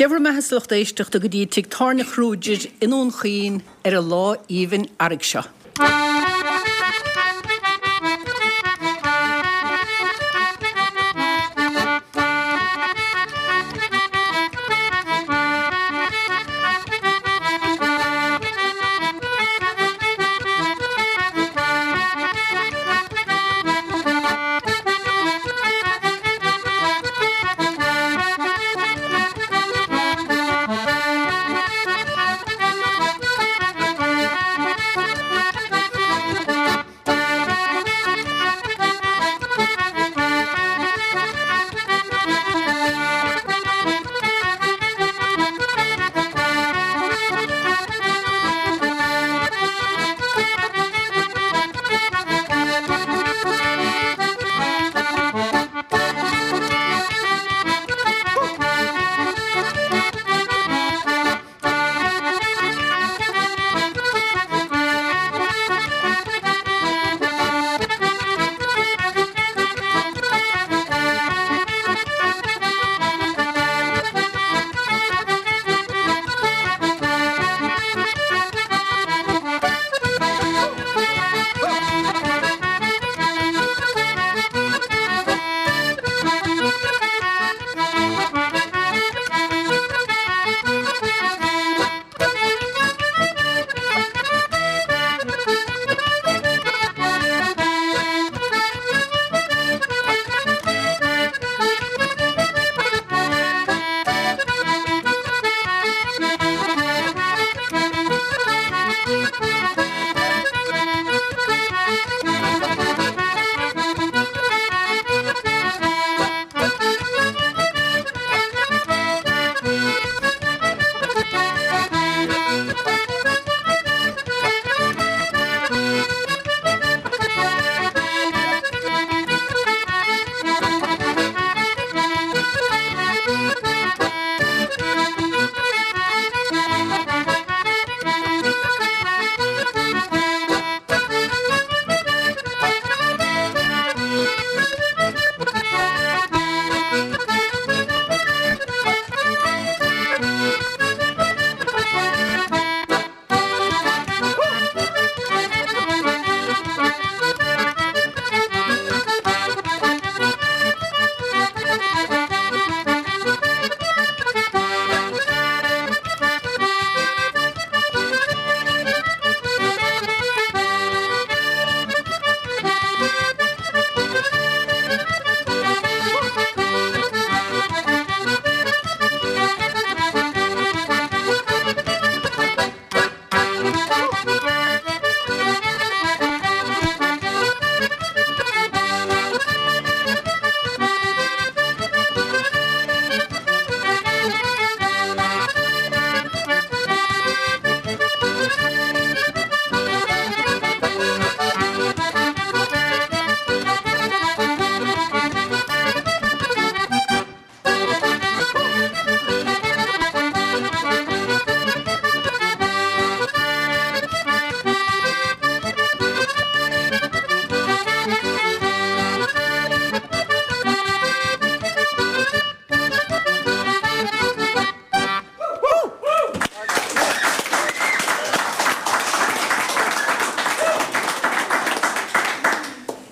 Dé bhur mbeatha 's a lucht éisteachta go dtí Tigh Tábhairne Kruger i nDún Chaoin ar an lá aoibhinn earraigh seo.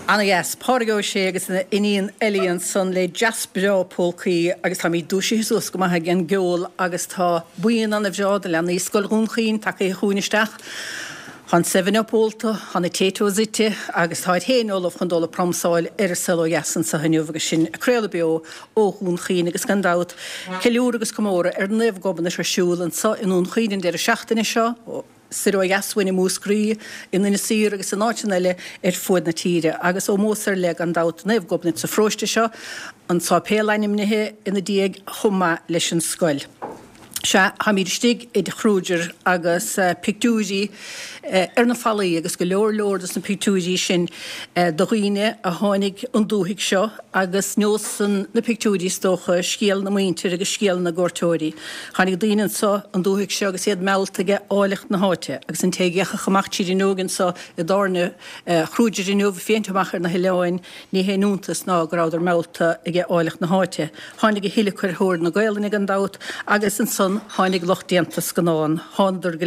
Ana-dheas. Pádraig Ó Sé agus a iníon Ellie ansan le dreas breá polcaí agus táimid dúisithe suas go maith ag an gceol agus tá buíon ana-bhreá de leanaí Scoil Dhún Chaoin tagaithe chugainn isteach. Tá an Seven Up ólta, tá na Taytos ite agus táid féin ullamh chun dul ag pramsáil ar an saol ó dheas anseo inniu agus sinn ag craoladh beo ó Dhún Chaoin agus gan dabht ceiliúradh agus comóradh ar Naomh Gobnait ar siúl anseo i nDún Chaoin an deireadh seachtaine seo. Soir ó dheas uainn i Múscraí, in Inis Oírr agus in áiteanna eile ar fuaid na tíre, agus ómós ar leith gan dabht do Naomh Gobnait sa pharóiste seo, an sáipéal ainmnithe ina diaidh chomh maith leis an scoil. Sea, táimid istigh i dTigh Kruger agus pictiúirí ar na fallaí agus go leor leor dos na pictiúirí sin de dhaoine a tháinig 'on dúthaigh seo agus neosann na pictiúirí is dócha scéal na muintir agus scéal na gcuairteoirí. Tháinig daoine anso 'on dúthaigh seo agus iad meallta age áilleacht na háite agus an té a d'fhéachfadh amach tríd an fhuinneog anso i dtábhairne Kruger inniu, féachaint amach ar na hoileáin, Ní haon iontas ná go rabhadar meallta age áilleacht na háite. Tháinig a thuilleadh ar thóir na Gaolainne gan dabht agus ansan tháinig lucht déanta scannán. Thánadar go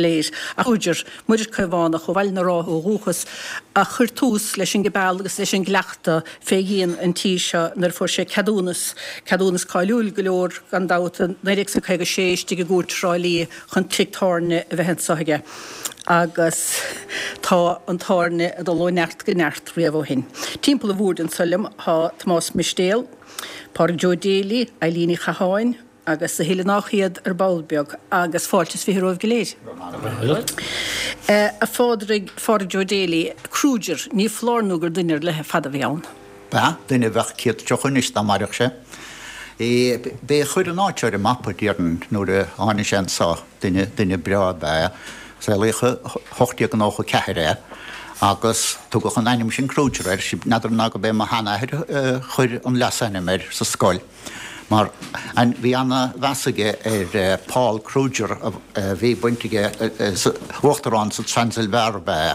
léir. Ach Kruger, Muiris Caomhánach ó Bhaile na Rátha ó dhúchas, a chuir tús leis an gcibeal agus leis an gcleachtadh fé dhíon an tí seo nuair a fuair sé ceadúnas, ceadúnas cáiliúil go leor gan dabht, i 1956 istigh i gCúirt Thrá Lí chun tigh tábhairne a bheith anso aige. Agus tá an tábhairne ag dul ó neart go neart riamh ó shin. Timpeall an bhoird anso liom tá Tomás Mistéal, Pádraig Joe Daly, Eileen Uí Chatháin agus a thuilleadh nách iad ar ball beag agus fáilte is 20 romhaibh go léir. A Phádraig, Phádraig Joe Daly, Kruger, ní foláir nó gur duine ar leith ar fad a bhí ann. B'ea, duine a bheadh 130 anois dá mairfeadh sé. B'é a chuir an áit ar an mapa, déarfainn, nuair a tháinig sé anso. Duine, duine breá ab ea é. Saolaíodh i 1894 é agus tugadh an ainm sin Kruger air. N'fheadar ná go b'é mo sheanathair a chuir an leasainm air sa scoil mar bhí ana-mheas aige ar Paul Kruger a bhí baint aige, uachtarán sa Transilvania ab ea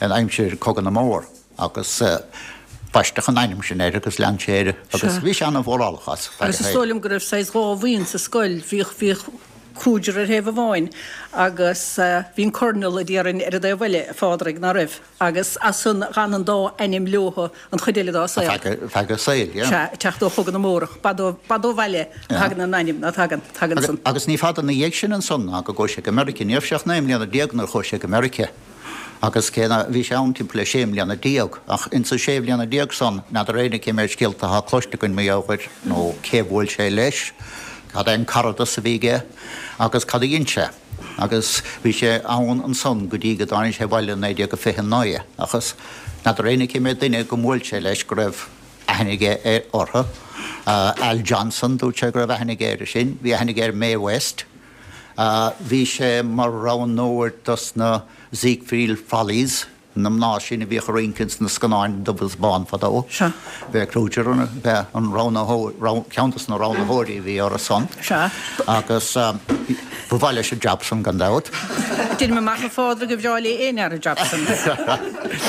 é in aimsir Cogadh na mBór. Agus baisteadh an ainm sin air agus lean sé air agus bhí sé ana-mhórálach as feadh a Agus is dóigh liom go raibh saghas dhá bhuíon sa scoil, bhíodh, bhíodh Kruger ar thaobh amháin agus bhí an Colonel a déarfainn ar an dtaobh eile, a Phádraig, ná raibh? Agus as san d'fhan an dá ainm leothu an chuid eile dá saol. Ar feadh a saoil, yeah. Sea, ag teacht ó Chogadh na mBórach. B'fhada ó, b'fhada ó bhaile a thagann an ainm, ná tagann, tagann san. Agus ní fada ina dhiaidh sin ansan ná go gcuaigh sé go Meirice. Ní raibh sé ach 19 mbliana nuair a chuaigh sé go Meirice. Agus cé ná, bhí sé ann timpeall le sé mbliana déag, ach insa sé bhliana déag san, n'fheadar éinne cé méid scéalta atá cloiste againn mar gheall air, nó cé bhuail sé leis, cad é an caradas a bhí aige, agus cad a dhein sé. Agus bhí sé ann ansan go dtí go dtáinig sé abhaile i 1929, ach n'fheadar éinne cé méid duine go mbuail sé leis go raibh aithne aige ar, orthu. Al Johnson, dúirt sé go raibh aithne aige air sin, bhí aithne aige ar Mae West. Bhí sé mar roghnóir dos na Ziegfeld Follies, na mná sin a bhíodh ag rince ins na scannáin dubh is bán fadó. Sea. B'é Kruger b'é an roghnaitheoir, ceann dos na roghnaitheoirí a bhí orthu san. Sea. Agus ba mhaith leis an jab san gan dabht. Deinim amach a Phádraig gur bhreá le aon fhear an jab san.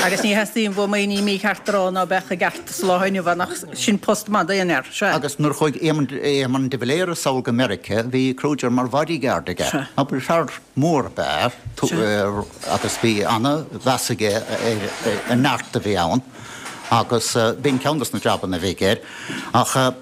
Agus ní theastaíonn uaim aon ní mícheart a rá ná beadh i gceart sa lá inniu ann ach sin post maith d'aon fhear. Sea. Agus nuair a chuaigh Éamon, Éamon de Valera sall go Meirice bhí Kruger mar bodyguard aige. Sea. Abair fear mór ab ea é agus bhí ana-mheas aige ar an neart a bhí ann agus b'in ceann dos na jabanna a bhí aige air. Ach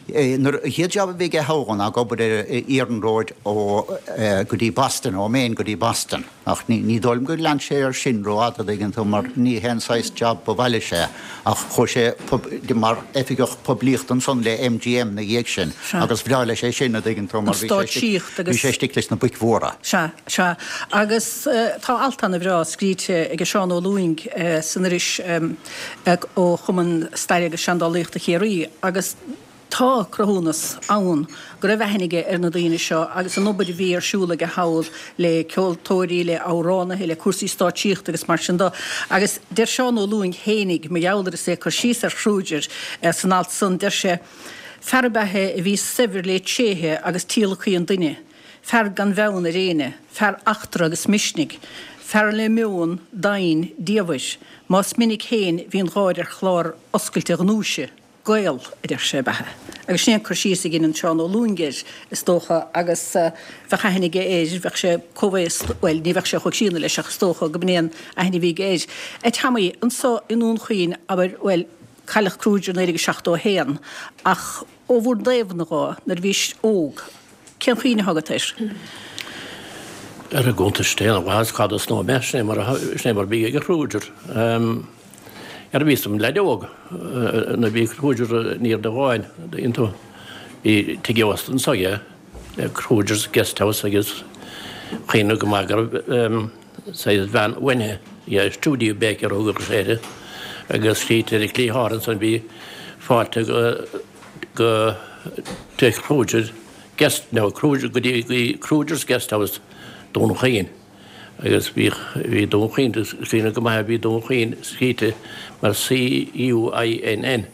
nuair, an chéad jab a bhí aige thall ná ag obair ar iarnróid ó go dtí Boston, ó Maine go dtí Boston. Ach ní dóigh liom gur lean sé air sin rófhada, an dtuigeann tú, mar ní hé an saghas jab ba mhaith leis é. Ach chuaigh sé mar oifigeach poiblíochta ansan le MGM 'na dhiaidh sin agus bhreá leis é sin, an dtuigeann tú, mar bhí sé istigh leis na boic mhóra. Sea, sea. Agus tá alt ana-bhreá scríte ag Seán Ó Lúing san iris ó Chumann Staire agus Seandálaíochta Chiarraí agus, Tá cruthúnas ann go raibh aithne aige ar na daoine seo agus an obair a bhí ar siúl aige thall le ceoltóirí, le amhránaithe, le cúrsaí stáitsíochta agus mar sin de. Agus deir Seán Ó Lúing fhéinig, mar gheall air is é ag cur síos ar Kruger san alt san, deir sé, Fear ab ea é a bhí saibhir le tréithe agus tíolacthaí an duine, fear gan bheann ar éinne, fear eachtra agus misnigh, fear le meon doimhin diamhair, más minic féin bhí an gháir ar chlár oscailte a ghnúise. Gael, a deir sé, ab ea é. Agus sin é an cur síos a dheineann Seán Ó Lúing air, is dócha, agus bheadh aithne aige air, bheadh sé comhaosta, bhuel, ní bheadh sé chomh críonna leis ach is dócha go b'in é an aithne a bhí aige air. A Tommy, anso i nDún Chaoin, abair, bhuel, cailleadh Kruger 1971, ach ó bhur dtaobhna dhó, nuair a bhís óg, cén chuimhne atá agat air? Ar an gcuntas féin, a mhaitheas cad is nó sin é mar a, sin é mar a bhí ag Kruger. Nuair a bhíos im leaid óg, nuair a bhí Kruger in Indreabhán iontu, bhí tigh ósta anso aige, Kruger's Guest House agus cuimhním go maith go raibh saghas veain uainithe, yeah, Studio Baker a thugadh sé uirthi, agus tchítear ar an gcliathán ansan bhí fáilte go tigh Kruger. Guest, no, Kruger, go dtí Kruger's Guest House, Dún Chaoin. Agus bhíodh, bhí Dún Chaoin, is cuimhin go maith, bhí Dún Chaoin scríte mar C-U-I-N-N.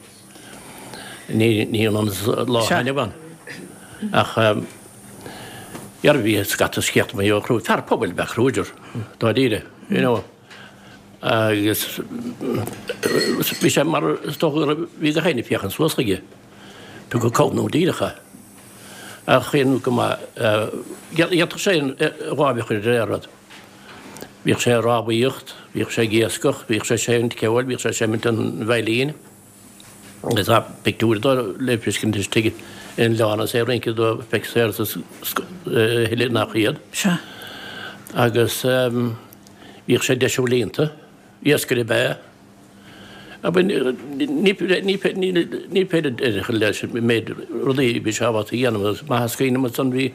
Ní, ní ionann is lá atá inniu ann. Ach, dhera bhí scata scéalta mar gheall ar Kruger. Fear pobail ab ea Kruger, dáiríre, you know. Agus bhí sé mar, is dócha go raibh, bhí gach éinne ag féachaint suas chuige. Tugadh comhnú díreach é. Ach chaon go maith, dhéanfadh sé a láimh a chur ar aon rud. Bhíodh sé ag rámhaíocht, bhíodh sé ag iascach, bhíodh sé ag seimint ceoil, bhíodh sé ag seimint an veidhlín. Agus tá pictiúir dó le feiscint istigh in oileán is é ag rince do Fexer is a thuilleadh nach iad. Sea. Agus bhíodh sé ag deisiú líonta, iascaire ab ea é. Ní féidir deireadh a chur leis an méid rudaí a bhí sé ábalta a dhéanamh. Is maith is cuimhin liom ansan bhí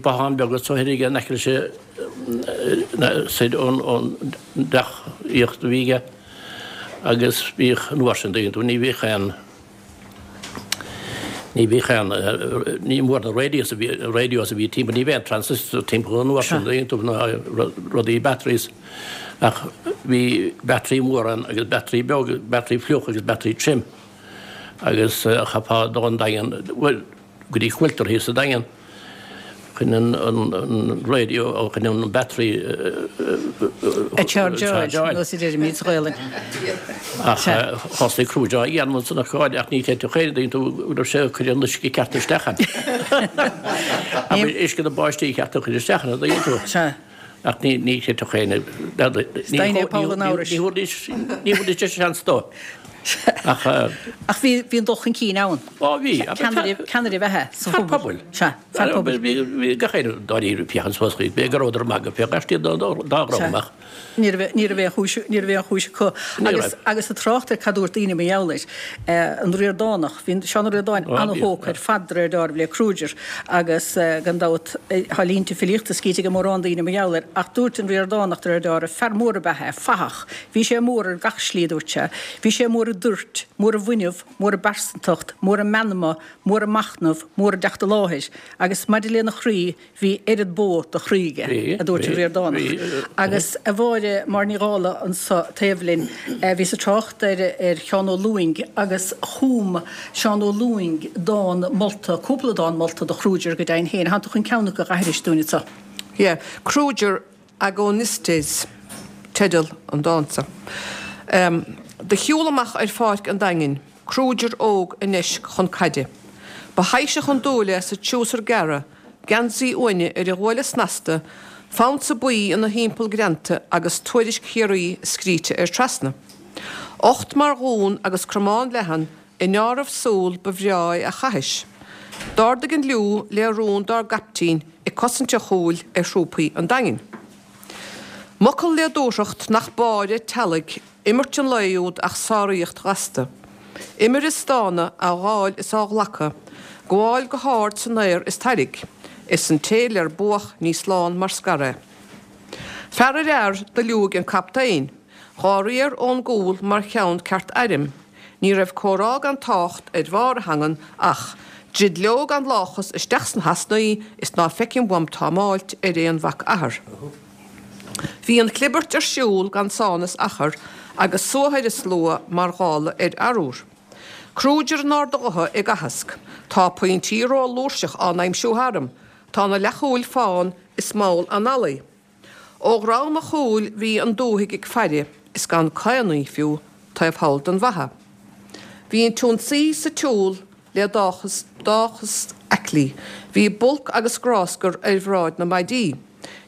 bothán beag anso thoir aige in aice leis soir ón dteach aíochta a bhí aige agus bhíodh an uair sin ní bhíodh aon Ní bhíodh aon, ní mór na radios a bhí, radios a bhí timpeall, ní bhíodh aon transistor timpeall an uair sin, na rudaí batteries ach bhí battery mór ann agus battery beag, battery fliuch agus battery tirim agus chaithfeá dul an Daingean, bhuel, go dtí Quilter thíos sa Daingean chun an radio, chun an battery a chargeáil, nós a deirimid sa Ghaelainn. Ach thosaigh Kruger á dhéanamh ansan a chairde ach ní chreidfeadh aon duine tú go raibh sé ag cur an uisce ceart isteach ann. Abair uisce na báistí ceart a chur isteach ann, an dtuigeann tú? Sea. Ach ní ní chreidfeadh éinne. Ní thabharfaidís ní thabharfaidís seans dó. Ach Ach bhí bhí an dul chun cinn ann. Ó bhí. Ceannaire ceannaire ab ea é sa phobal. Fear pobail. Sea, fear pobail. Bhí bhí gach éinne dáiríre ag féachaint suas chuige. B'fhéidir go rabhadar ag magadh fé gach dá dá raibh amach. Ní raibh ní raibh aon chúis ní raibh aon chúis acu. Agus agus ag trácht ar cad dúirt daoine mar gheall air, an Ríordánach, bhí Seán Ó Ríordáin an-thógtha ar fad de réir deáraimh le Kruger agus gan dabht tá línte filíochta scríte ag mórán daoine mar gheall air ach dúirt an Ríordánach de réir deáraimh, fear mór ab ea é, fathach. Bhí sé mór ar gach slí, a dúirt sé. Bhí sé mór i dtoirt, mór i bhfuinneamh, mór i bpearsantacht, mór i meanma, mór i machnamh, mór i dteacht i láthair. Agus maidir lena chroí, bhí oiread bó de chroí aige, a dúirt an Ríordánach. Agus a Mháire, Máire Ní Dhálaigh anso taobh linn, bhíos ag trácht ar ar Sheán Ó Lúing agus chum Seán Ó Lúing dán molta, cúpla dán molta do Kruger go deimhin féin. Thánn tú chun ceann acu a aithris dúinn anso. Yeah. Kruger Agonistes teideal an dáin so. Do shiúl amach ar pháirc an Daingin, Kruger óg i ndeisc chun caide. Ba thaibhseach an dúil é sa triúsar gearra, geansaí uaine ar a ghuaille snasta, fonsa buí ina thimpeall greanta agus tuairisc Chiarraí scríte air trasna. Ucht mar dhún agus cromán leathan I ndeáramh súl ba bhreá é a chaithis. D'ardaigh an liú le rún dár gcaiptín ag cosaint an chúil ar thrúpaí an Daingin. M'fhocal le dúthracht nach báire teallaigh imirt an lae úd ach sáraíocht ghasta. Imir ag stánadh, á ghabháil is á ghlacadh, gabháil go hard san aer is tairg, is an té ler buadh ní slán mar scar é. Fear ar fhear do liúigh an captaen. Dhá riar ón gcúl mar cheann ceart airm. Ní raibh comhrá gan tácht ar bharr a theangan ach, Druid leo gan láchas isteach sna heasnaí is ná feicim uaim támáilt ar aon mhac athar. Bhí an chlibirt ar siúl gan sán is achar agus suathadh ar an slua mar ghála ar arúr. Kruger in ard a ghutha ag aitheasc. Tá pointí ró-fhlúirseach á n-aimsiú tharam. Tá na leathchúil fán is mall analaí. Ó dhroim an chúil bhí an dúthaigh ag faire is gan caonaí fiú taobh thall den bhfaiche. Bhí an t-ionsaí sa tsiúl le dóchas aiclí. Bhí bulc agus gráscar ar bhráid na maidí.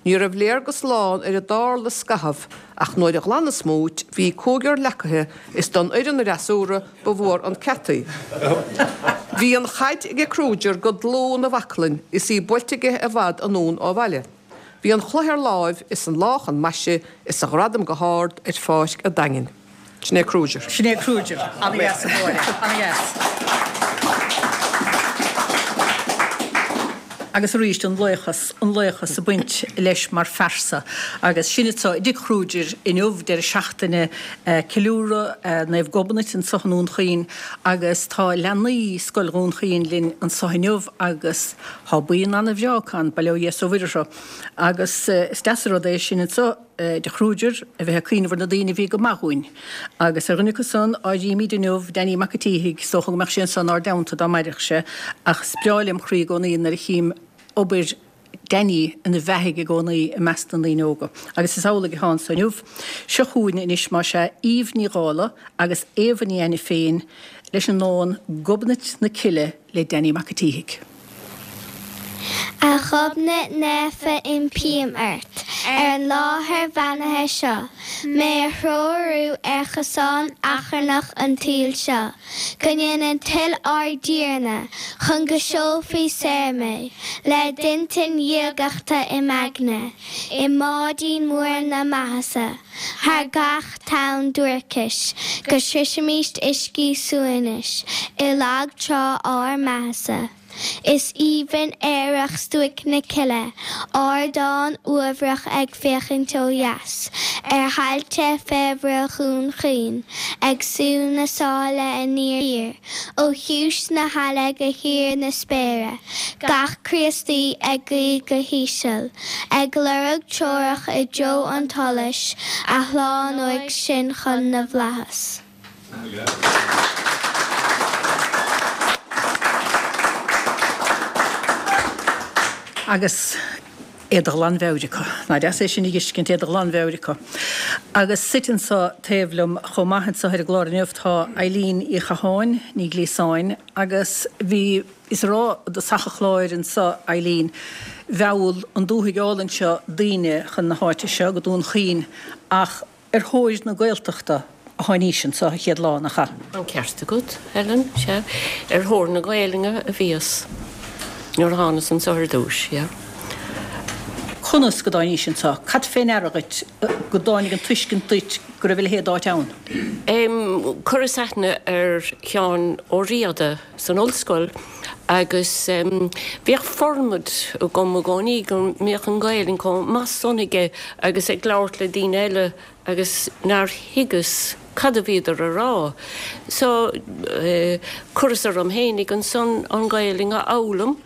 Ní raibh léargas lán ar a dtarla scaitheamh ach nuair a ghlan an smúit bhí cúigear leacaithe is don fhoireann fhreasúra ba mhór an ceataí. Bhí an chaid aige Kruger go dlúth 'na bhaclainn is í buailte aige i bhfad anonn ó bhaile. Bhí an chloich ar láimh is an lá chun maise is a ghradam go hard ar pháirc a' Daingin. Sin é Kruger. Sin é Kruger. Ana-dheas, a Mháire. Ana-dheas. Agus arís an laochas, an laochas ag baint leis mar phearsa. Agus sinn anseo i dTigh Kruger inniu, deireadh seachtaine ceiliúradh Naomh Gobnait anseo i nDún Chaoin agus tá leanaí Scoil Dhún Chaoin linn anseo inniu agus tá buíon ana-bhreá acu ann, bail ó Dhia is ó Mhuire orthu. Agus is deas an rud é sinn anseo i dTigh Kruger a bheith ag cuimhneamh ar na daoine a bhí go maith dhúinn. Agus ar dhuine acu san, áirímid inniu Danny Mac a' tSíthigh, is dócha go mbeadh sé anseo inár dteannta dá mairfeadh sé, ach is breá lem chroí i gcónaí nuair a chím obair Danny ina bheathaidh i gcónaí i measc na ndaoine óga. Agus is amhlaidh atá anso inniu. Seo chugainn anois más ea Eve Ní Dhálaigh agus Éabha Ní Ainiféin leis an ndán 'Gobnait na Cille' le Danny Mac a' tSíthigh. A Ghobnait naofa impím ort, ar an láthair bheannaithe seo, mé a threorú ar chosán achrannach an tsaoil seo, go ndéana toil ár dTiarna, chun go seolfaí saor mé, le d'intinn dhiagachta i m'aigne, i mbáidín mór na maitheasa, thar gach tonn duaircis, go sroisfimíst uiscí suaimhnis, i lag trá ár maitheasa. Is aoibhinn aerach stuaic na cille, ardán uaibhreach ag féachaint ó dheas ar thailte féarmhara Dhún Chaoin, ag sú na sáile aniar thiar, ó chiumhais na haille go híor na spéire, gach Críostaí ag guí go híseal, ag lorg treorach i dtreo an tsolais a shlánóidh sinn chun na bhflaitheas. Agus é de ghlanmheabhair acu. Nach deas é sin a dh'fheiscint, é de ghlanmheabhair acu. Agus suite anso taobh liom chomh maith anso ar an gclár inniu tá Eileen Uí Chatháin, Ní Ghliasáin, agus bhí, is a rá i dtosach an chláir anso, Eileen, mheall an dúthaigh álainn seo daoine chun na háite seo, go Dún Chaoin, ach Ar thóir na Gaeltachta a tháinís anso an chéad lá, nach ea? An ceart agat, Helen, sea. Ar thóir na Gaelainne a bhíos nuair a thánas anso ar dtúis, yeah. Conas go dtáinís anso? Cad fé ndeara dhuit go dtáinig an tuiscint duit go raibh a leithéid d'áit ann? Em, chuireas aithne ar Sheán Ó Riada san ollscoil agus em, bhíodh formad agam i gcónaí go mbíodh an Ghaelainn chomh maith san aige agus ag labhairt le daoine eile agus nár thuigeas cad a bhíodar a rá. So, eh, chuireas orm fhéinig ansan an Ghaelainn a fhoghlaim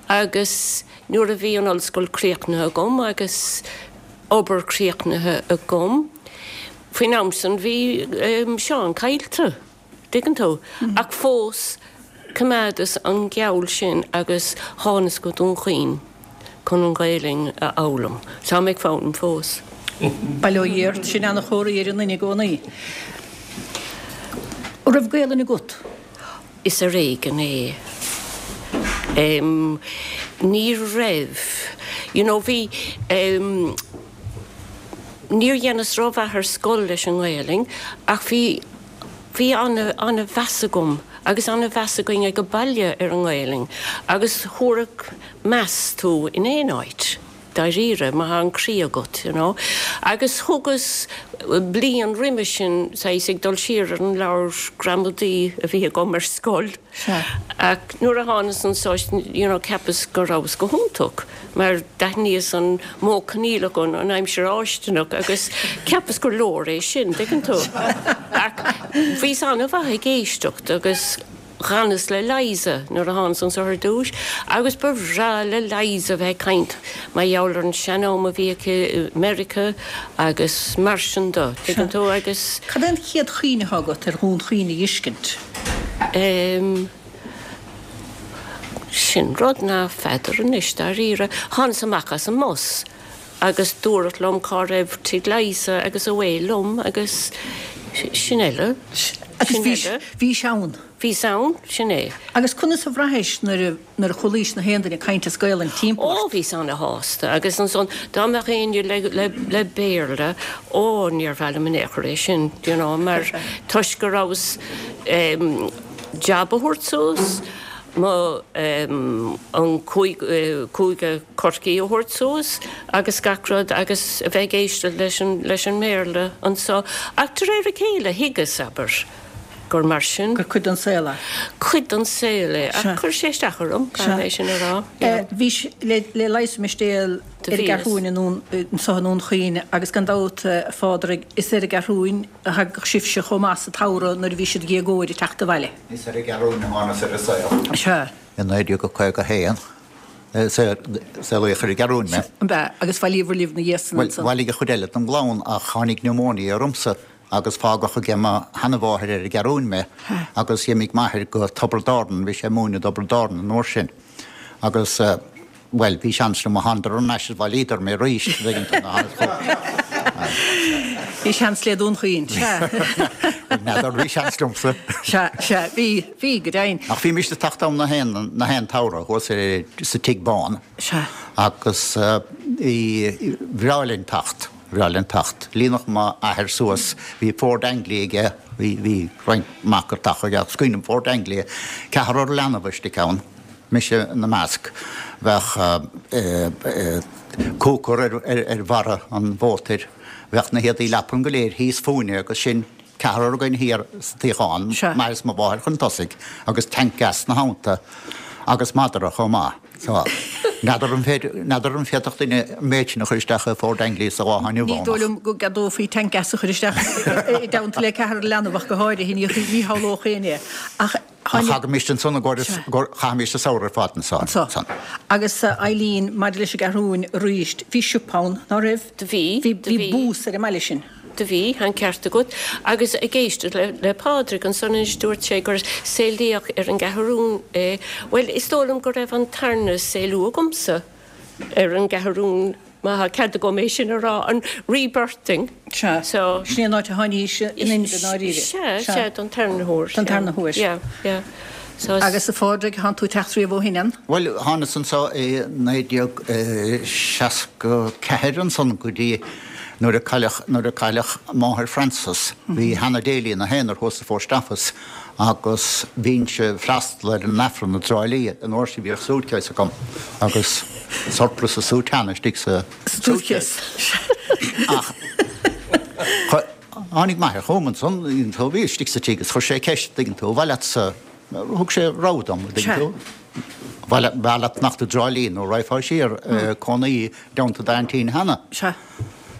agus nuair a bhí an ollscoil críochnaithe agam agus obair críochnaithe agam, faoin am san bhí em, Seán caillte. dtuigeann tú? Ach fós, choimeádas an geall sin agus thánas go Dún Chaoin chun an Ghaelainn a fhoghlaim. Tá mé ag foghlaim fós. Bail ó Dhia ort, sin ana-chomhartha ar an nduine i gcónaí. An raibh Gaelainn agat? Is ar éigean é. Ní raibh. You know, bhí. Níor dheineas rómhaith ar scoil leis an nGaelainn ach bhí. Bhí ana-mheas agam agus ana-mheas againn ag an baile ar an nGaelainn agus thabharfadh meas tú in aon áit, dáiríre, má thá an croí agat, you know. Agus thugas bliain roimhe sin, saghas ag dul siar ar an leabhar gramadaí a bhí agam ar scoil. Ach nuair a thánas anso, you know, cheapas go rabhas go hiontach. mar d'aithníos an modh coinníollach an aimsir fháistineach agus cheapas gur leor é sin, dtuigeann tú. Ach bhíos an-mhaith ag éisteacht agus dh'fhanas le Liza nuair a thánas anso ar dtúis agus ba bhreá le Liza bheith ag caint mar gheall ar an sean-am a bhí aici i Meiriceá agus mar sin de, tuigeann tú, agus. Cad é an chéad chuimhne atá agat ar Dhún Chaoin a dh'fheiscint? Em. Sin rud ná feadar anois, dáiríre. Thánas amach as an mbus agus dúradh liom cá raibh tigh Liza agus away liom agus sin eile. Agus bhís, bhís ann? Bhíos ann, sin é. Agus conas a bhraithis nuair a, nuair a chualaís na haon duine ag caint as Gaolainn timpeall ort? Ó, bhíos ana-shásta agus ansan dá mbeadh éinne le, le, le Béarla, ó, níor mhaith liom in aon chor é sin, you know, mar toisc go rabhas, em, jab a thabhairt suas, mo, an cúige Chorcaí a thabhairt suas agus gach rud agus a bheith ag éisteacht leis an, leis an mBéarla anso. Ach de réir a chéile thuigeas, abair, go. gur mar sin. Gur cuid den saol é. Cuid den saol é. Ach chuir sé isteach orm, caithfidh mé sin a rá. Bhís le Leigheas Mistéal ar an gCeathrúin anso i nDún Chaoin agus gan dabht, a Phádraig, is ar an gCeathrúin a thagadh sibhse chomh maith sa tsamhradh nuair a bhí siad déagóir ag teacht abhaile. Is ar an gCeathrúin a thánas ar an saol. Sea. I 1951 saolaíodh ar an gCeathrúin mé. Ab ea? Agus bhailíobhair libh na dhiaidh san ansan? Bhuel, bhailigh an chuid eile den gclann ach tháinig pneumonia ormsa agus fágadh aige mo sheanamháthair ar an gCeathrúin mé agus d'imigh m'athair go Tiobraid Árann, bhí sé ag múineadh i dTiobraid Árann an uair sin agus bhuel, bhí seans liom, thánadar thar n-ais is bhailíodar mé arís, an dtuigeann tú, na Bhí seans le Dún Chaoin, sea. N'fheadar, bhí seans liomsa. Sea, sea, bhí, bhí, go deimhin. Ach bhímist ag teacht ann na haon, na haon tsamhradh thuas sa Tigh Bán. Sea. Agus bhí, bhreá linn teacht, bhreá linn teacht. Líonadh m'athair suas, bhí Ford Anglia aige, bhí, bhí roinnt mac ag teacht aige, ach cuimhním Ford Anglia, ceathrar leanbh istigh ann. mise ina measc. Bheadh cooker ar bharra an mhótair, bheadh na héadaí leapan go léir thíos fúinne agus sinn ceathrar againn thiar sa tsuíochán, m'athair is mo mháthair chun tosaigh agus tank gas 'na theannta agus madra chomh maith. So, n'fheadar an féidir, n'fheadar an féadfadh duine an méid sin a chur isteach i Ford Anglia sa lá atá inniu ann ach. Ní dóigh liom go gceadófaí tank gas a chur isteach i dteannta le ceathrar leanbh ach go háirithe, ní shamhlódh éinne é. Ach. Ach thagaimis ansan i gcomhair, chaithimis an samhradh ar fad ansan. Anso. Agus a Eileen, maidir leis an gCeathrúin arís, bhí siopa ann, ná raibh? Do bhí, do bhí. Bhí bús ar an mbaile sin. Do bhí, tá an ceart agat. Agus ag éisteacht le, le Pádraig ansan anois dúirt sé gur saolaíodh ar an gCeathrún é. Bhuel, is dóigh liom go raibh an tarna saolú agamsa ar an gCeathrún. Má tá cead agam é sin a rá, an rebirthing. Sea. So. Sin é an áit a tháinís in inmhe i ndáiríre. Sea, sea, don tarna huair. Don tarna huair. Yeah, yeah. So. Agus a Phádraig, thánn tú ag teacht riamh ó shin, an? Bhuel, thánas anso i 1964 ansan go dtí nuair a cailleadh, nuair a cailleadh máthair Frances. Bhí Hannah Daly ina haonar thuas sa Phost Office agus bhínnse ag freastal ar an Aifreann i dTrá Lí an uair sin bhíodh suitcase agam agus surplice is soutane istigh sa suitcase. Ach tháinig m'athair chugam ansan, tú, bhí istigh sa tigh agus chuir sé ceist, dtuigeann tú, an mhaith leatsa, thug sé rogha dom, dtuigeann tú, an mhaith leat fanacht i dTrá Lí nó raghfá siar cónaí i dteannta d'aintín Hannah.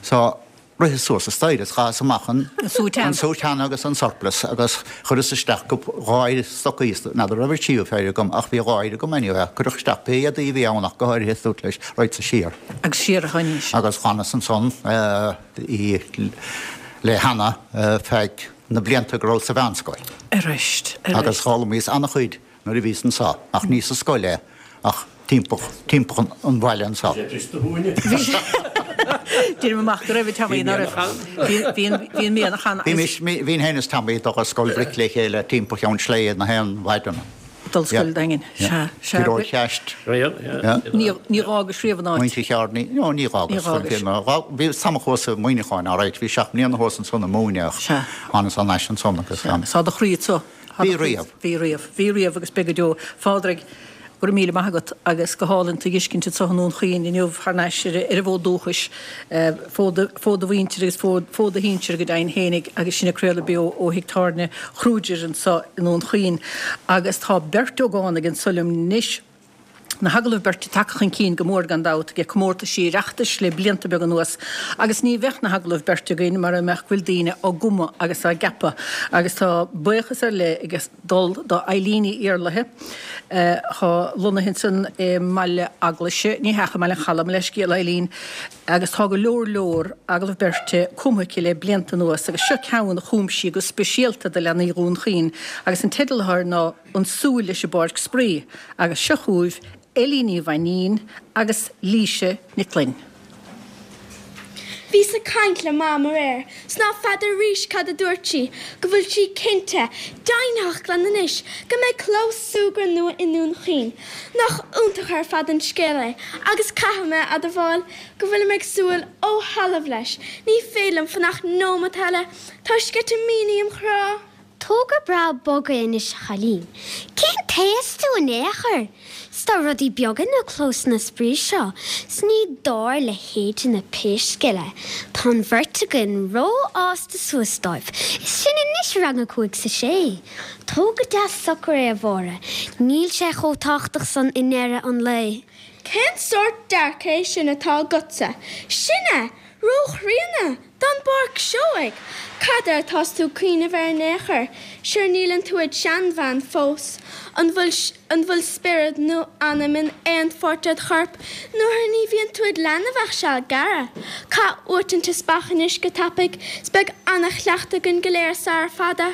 So Ritheas suas an staighre is chaitheas amach an soutane agus an surplice agus chuireas isteach dhá stocaí, n'fheadar raibh an tríú péire agam ach bhí dhá phéire agam anyway, cuireadh isteach pé éadaí a bhí ann ach go háirithe is dúirt leis raghadsa siar. Agus siar a tháinís. Agus d'fhanas ansan le Hannah feadh na blianta go rabhas sa mheánscoil. Arís, arís. Agus d'fhoghlaimíos an-chuid nuair a bhíos anso, ach ní sa scoil é, ach timpeall, timpeall an bhaile anso. Deirim amach go raibh, a Tommy, ná raibh. Bhí an, bhí an mianach ann agus. Bhímis, bhínn féin is Tommy ag dul ar scoil bhric le chéile timpeall Cheann Sléibhe na haon mhaidin. Dul scoil Daingin. Sea, sea. Gearóid Cheaist. Ní, ní dh'fhágais riamh an áit. Muintir Chearnaí, no, ní dh'fhágas. Ní dh'fhágais. Bhí tamall thuas i Muineachán, alright, bhí seacht mbliana thuas ansan ag múineadh ach thánas thar n-ais ansan agus. Sea, tá do chroí anso. Bhí riamh. Bhí riamh. Bhí riamh agus beidh go deo. Phádraig, go raibh míle maith agat agus go hálainn tú a dh'fheiscint anso i nDún Chaoin inniu thar n-ais ar an bhfód dúchais, fód do mhuintire agus fód do shinsir go deimhin fhéinig agus sinn ag craoladh beo ó thigh tábhairne Kruger anso i nDún Chaoin. Agus tá beirt ógánaigh anso liom anois. Na hagallaimh beirte tagtha chun cinn go mór gan dabht ag comórtaisí Oireachtais le blianta beaga anuas agus ní bheadh na hagallaimh beirte againn mara mbeadh go bhfuil daoine á gcumadh agus á gceapadh agus tá buíochas ar leith ag dul do Eileen Ní Iarlaithe atá lonnaithe ansan i mBaile Eaglaise, ní hea, i mBaile an Chalaidh, mo leithscéal Eileen, agus tá go leor leor agallamh beirte cumtha aici le blianta anuas agus seo ceann a chum sí go speisialta do leanaí Dhún Chaoin agus an teideal atá air ná An Súil leis an bPáirc Spraoi agus seo chugaibh Eilín Ní Mhainín agus Laoise Nic Fhloinn. Bhíos ag caint le Mam aréir 's ná feadar arís cad a dúirt sí, go bhfuil sí cinnte, deimhnitheach glan anois, go mbeidh clós súgradh nua i nDún Chaoin. Nach iontach ar fad an scéal é agus caithfidh mé a admháil go bhfuilim ag súil ó thalamh leis. Ní féidir liom fanacht nóimeat eile, tá sceitimíní im chrá. Togra breá bog é anois a chailín. Cén t-aos tú in aon chor? 'S. 'S tá rudaí beaga na clósanna spraoi seo 's ní dár leithéidne pé scéal é. Tá an bheirt againn rófhásta suas dóibh, is sinn anois i rang a cúig 's a sé. Tóg go deas socair é, a Mháire, níl sé chomh tábhachtach san i ndeireadh an lae. Cén sórt dearcadh é sin atá agatsa? Sin é! Róchríonna! Don bPáirc Seoighe! Cad air atás tú ag cuimhneamh air in aon chor? Sure níleann tú id sheanbhean fós. An bhfuil an bhfuil spiorad nó anam in aon pháirt ded chorp nuair ní bhíonn tú id leanbh ach seal gearr? Caith uait an teaspach anois go tapaidh 's beidh ana-chleachtadh againn go léir sara fada.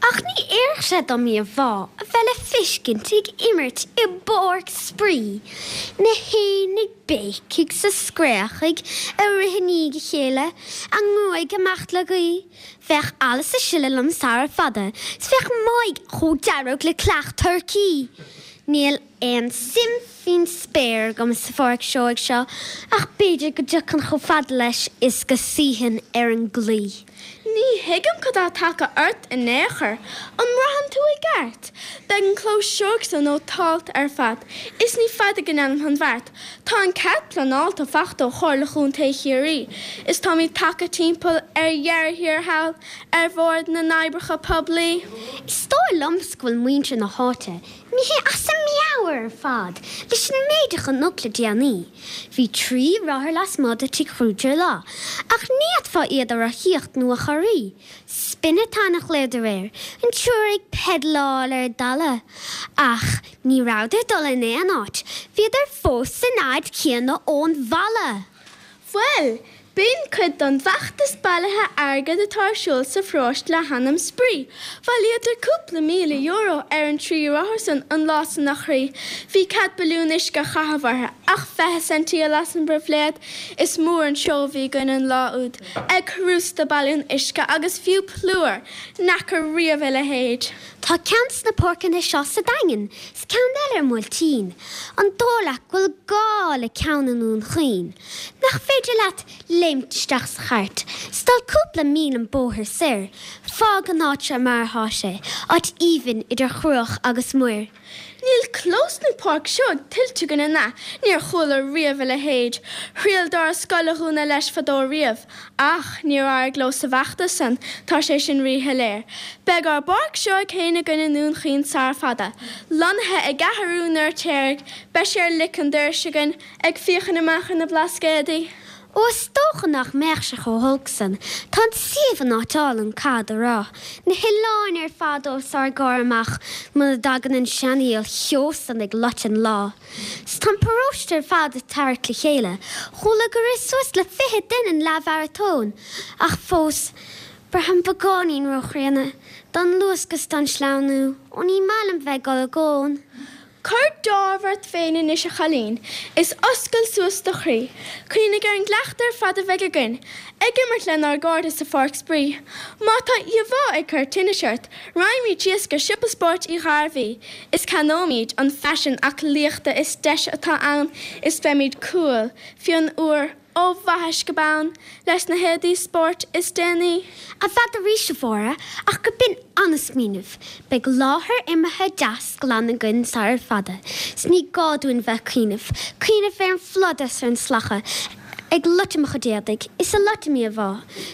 Ach ní oirfeadh sé dom íomhá a bheith le feiscint ag imirt i bpáirc spraoi, na héin ag béicigh 's ag scréachaigh ag rith i ndiaidh a chéile, a ngruaig ag imeacht le gaoth. Bheadh allas ag sileadh liom sara fada 's bheadh m'aghaidh chomh dearg le creach turcaí. Níl aon suim faoin spéir agam sa Pháirc Seoighe seo ach b'fhéidir go dtiocfainn chomh fada leis is go suífinn ar an gclaí. Ní thuigim cad tá tagtha ort in aon chor. An mbraitheann tú i gceart? Beidh an clós seoigh so nótálta ar fad is ní fada go ndéanfam an bheart. Tá an cead pleanáilte fachta ó Chomhairle Chontae Chiarraí is táimid tagtha timpeall ar dheireadh thiar thall ar Bhord na nOibreacha Poiblí. Is dóigh liomsa go bhfuil muintir na háite Imithe as a meabhair ar fad leis an méid a chonac le déanaí. Bhí 3 rothar lasmuigh de Tigh Kruger lá, ach ní fhéadfá iad a rothaíocht nó a chorraí. Spin-a-thon a ghlaodar air, an triúr ag peidealáil ar an dtalamh. Ach ní rabhadar ag dul in aon áit, bhíodar fós san fhad céanna ón bhalla! Bhuel, b'in cuid don bhfeachtas bailithe airgid atá ar siúl sa pharóiste le hainm Spraoi. Bhailíodar cúpla €1,000 ar an dtrí rothar san an lá san a chroí. Bhí cead balún uisce a chaitheamh orthu, ach 20 ceintí a las an bpribhléid. Is mór an seó a bhí againn an lá úd, ag rústadh balún uisce agus fiú plúr! N'fheaca riamh a leithéid. Tá ceann sna páirceanna seo sa Daingean 's ceann eile ar Bhuailtín. An dóigh leat go bhfuil gá le ceann i nDún Chaoin? Nach féidir leat léimt isteach sa chairt 's dul cúpla míle an bóthar soir? Fág an áit seo mar atá sé, áit aoibhinn idir chruach agus muir. Níl clós nó páirc seoigh tuillte againn an ea? Níor chuala riamh a leithéid. Thriail doras scoil a dhúnadh leis fadó riamh. Ach níor éirigh leo sa bhfeachtas san, tá sé sin ríshoiléir. Beidh ár bpáirc seoigh féin againn i nDún Chaoin sara fada. Lonnaithe i gCeathrú an Fheirtéaraigh, beidh sé ar lic an dorais againn. Ag féachaint amach ar na Blascaodaí. Ó is dócha nach mbeadh sé chomh holc san. Tá an suíomh in áit álainn, caithfead a rá. Na hoileáin ar fad os ár gcomhair amach muna dtagann an seanfhuíoll cheo san ag loit an lá. 'S tá an paróiste ar fad ag tarrac le chéile. Chuala gur rith suas le 20 duine an leathmharatón. Ach fós, braithim beagáinín róchríonna don luascadh 's don sleamhnú. Ó ní maith liom bheith ag dul i gcón. Cuir deáramh ort féin anois a chailín, is oscail suas do chroí. Cuimhnigh ar an gcleachtadh ar fad a bheidh againn, ag imirt lenár gcairde sa pháirc spraoi. Má tá íomhá ag cur tinnis ort, raghaimid síos go Siopa Spóirt Uí Ghairbhí, is ceannóimid an faisean aclaíochta is deise atá ann, is beimid cool, fionn úr. Ó bhaithis go bonn, leis na héadaí spóirt is déanaí. N'fheadar arís, a Mháire, ach go b'in an-smaoineamh. Beidh láthair imeartha deas glan againn sarar fada, 's ní gá dúinn bheith ag cuimhneamh, cuimhneamh ar an phlud 's ar an slacadh ag loiteadh mo chuid éadaigh, is ag loiteadh m'íomhá.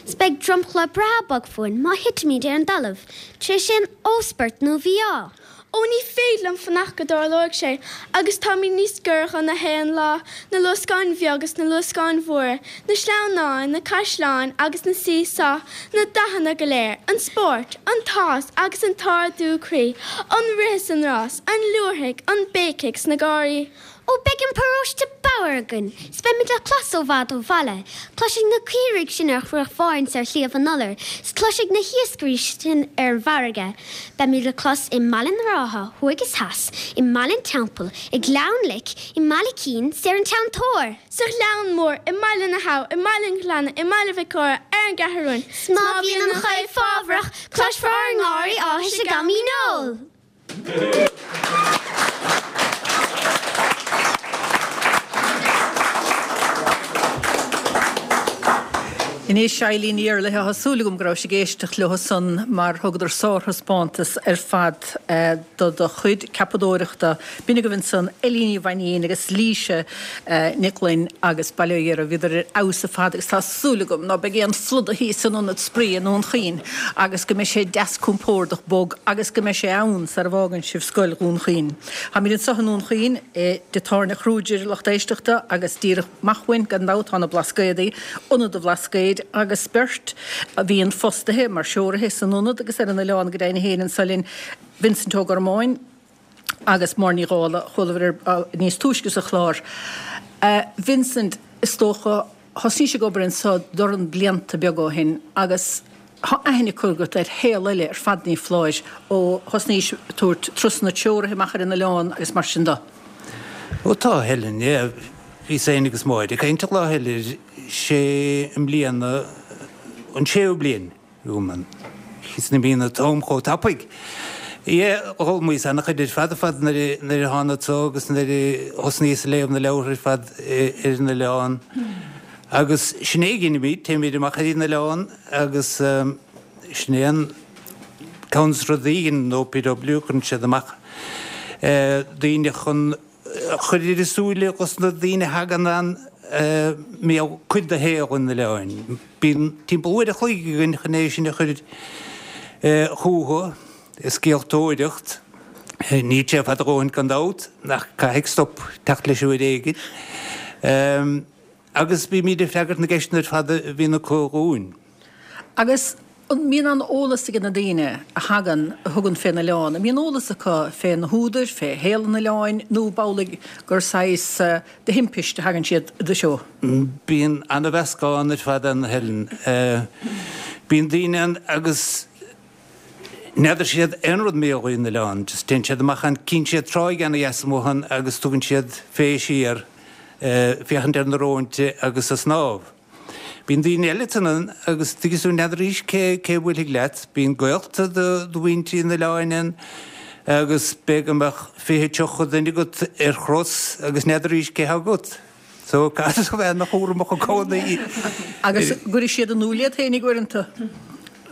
'S beidh dromchla breá bog fúinn má thitimid ar an dtalamh, tar éis aon ósport nó mhí-ádh. Ó ní féidir liom fanacht go dtarlóidh sé, agus táimid níos giorra dho na haon lá, na luascáin bheaga is na luascáin mhóra, na sleamhnáin, na caisleáin agus na see-saw, na dathanna go léir, an spórt, an t-áthas agus an t-ardú croí, an rith is an rás, an liúirthigh, an béicigh 's na gáirí. Ó beidh an paróiste bodhar againn, 's beimid le clos ó bhfad ó bhaile. Cloisfidh na caoirigh sin ar Chruach Bháirn 's ar Shliabh an Iolair, 's cloisfidh na hiascairí sin ar an bhfarraige. Beimid le clos i mBaile na Rátha, thuaidh is theas, i mBaile an Teampaill, i nGleann Lic, i mBaile Cinn 's ar an Ceann Toir. Sa Ghleann Mór, i mBaile na hAbha, i mBaile an Ghleanna, i mBaile Mhic Óra, ar an gCeathrú Rua. 'S má bhíonn an choill fábharach, cloisfear ár ngáirí áthais ag am an óil. Anois, Eileen Ní Éarlaithe, tá súil agam go rabhais ag éisteacht leo san mar thugadar sárthaispeántas ar fad do do chuid ceapadóireachta. B'in agaibh ansan Eilín Ní Mhainín agus Laoise Nic Fhloinn agus bail ó Dhia orthu, bhíodar ar fheabhas ar fad agus tá súil agam ná beidh aon phluda thíos san ionad spraoi i nDún Chaoin agus go mbeidh sé deas compordach bog agus go mbeidh sé ann sara bhfágann sibh Scoil Dhún Chaoin. Táimid anseo i nDún Chaoin i dTigh Tábhairne Kruger, a lucht éisteachta, agus díreach amach uainn, gan dabht, tá na Blascaodaí, Ionad an Bhlascaoid, agus beirt a bhíonn fostaithe mar threoraithe san ionad agus ar an oileán go deimhin féin anseo linn, Vincent Ó Gormáin agus Máire Ní Dhálaigh, a chualamar air níos túisce sa chlár. Vincent, is dócha, thosnaís ag obair anseo dornán blianta beaga ó shin agus tá aithne curtha agat ar shaol eile ar fad ní foláir ó thosnaís ag tabhairt turasanna treoraithe amach ar an oileán agus mar sin de. Ó tá, Helen, yeah. Bhíos féin agus Máire ag caint an lá eile, sé i mbliana an séú bliain agam ann. Is imíonn an t-am chomh tapaidh. Yeah, d'fhoghlaimíos ana-chuid ar fad ar fad nuair a thánag anso agus nuair a thosnaíos ag léamh na leabhartha ar fad ar an oileán. Agus sin é a dheinimid, téimid amach ar an oileán agus sin é an ceann de na rudaí a dheineann an OPW, cuireann siad amach daoine chun chur ar a súile dos na daoine a thagann ann mar chuid de shaol an oileáin. Bíonn timpeall uair a chloig againn chun é sin a chur chucu, i scéaltóireacht. Níl sé fada a dhóthain gan dabht, ach caithfidh stop teacht leis uair éigin. Agus bímid ag freagairt na gceisteanna ar fad a bhíonn acu dhúinn. Agus an mbíonn an eolas ag na daoine a thagann, a thugann fén oileán, an mbíonn eolas acu fé na húdair, fé shaol an oileáin, nó ab amhlaidh gur saghas de thimpist a thagann siad i do threo? Bíonn ana-mheascán ar fad ann, a Helen. Bíonn daoine ann agus n'fheadar siad aon rud mar gheall ar an oileán, just téann siad amach ann, cíonn siad tráigh ana-dheas amuigh ann agus tugann siad fé siar féachaint ar na róinte agus a' snámh. Bíonn daoine eile ann agus tuigeann tú n'fheadraís cé cé a bhuailfidh leat. Bíonn gaolta do mhuintir an oileáin ann agus b'fhéidir go mbeadh 20, 30 duine agat ar chros agus n'fheadraís cé thá agat. So caithfidh tú a bheith ana-chúramach i gcónaí. Agus an gcuirfidh siad in iúl iad féinig uaireanta?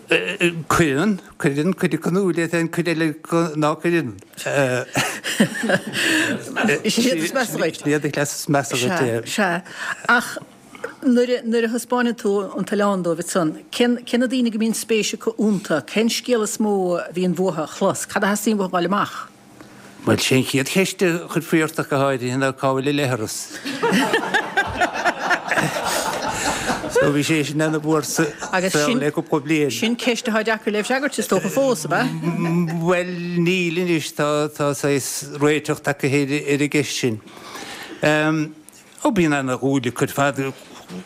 Cuireann, cuireann, cuid acu in iúl iad féin, cuid eile ná cuireann. Is iad is measa dhuit. Iad a chleas is measa dhuit, yeah. Sea, sea. Ach Nuair a thaispeáineann tú an t-oileán dóibh ansan, cé cé na daoine go mbíonn spéis acu iontu? Cén scéal is mó a bhíonn uathu a chlos? Cad a theastaíonn uathu a fháil amach? Bhuel, sé an chéad cheist a chuirfí ort ach go háirithe ná cá bhfuil an leithreas? So bhí sé sin ana mhór sa saol le cúpla bliain. Sin ceist atá deacair le freagairt is dócha fós, ab ea? Bhuel, níl anois, tá tá saghas réiteach tagtha ar an gceist sin. Ó bíonn ana dhúil acu ar fad.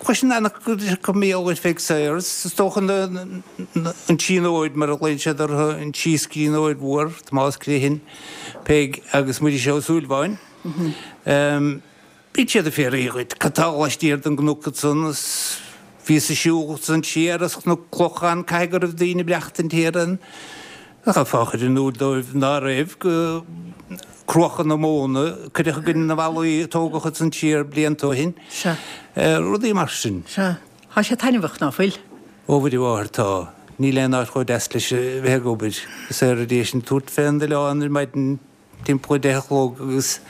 Cloiseann ana chuid acu mar gheall ar Pheig Sayers. Is dócha an tSíonóir mar a ghlaonn siad uirthi, an síscríbhneoir mhór, Tomás Criomhthain, Peig agus Muiris Ó Súilleabháin. Bíonn siad ag fiafraí dhuit cad tá laistiar den gcnoc ansan is bhíos ag siúl ansan siar as Cnoc Clochán caithfidh go raibh daoine ag maireachtaint thiar ann. Chaithfeá a chur in iúl dóibh ná raibh, go cruacha na móna a cuireadh i gcoinne na bhfallaí a tógadh ansan siar blianta ó shin. Sea. Rudaí mar sin. Sea. Tá sé taitneamhach, ná fuil? Ó Mhuire Mháthair, tá. Níl aon áit chomh deas leis a bheith ag obair. Is ar éis an tabhairt fén oileán ar maidin timpeall a 10 a chlog agus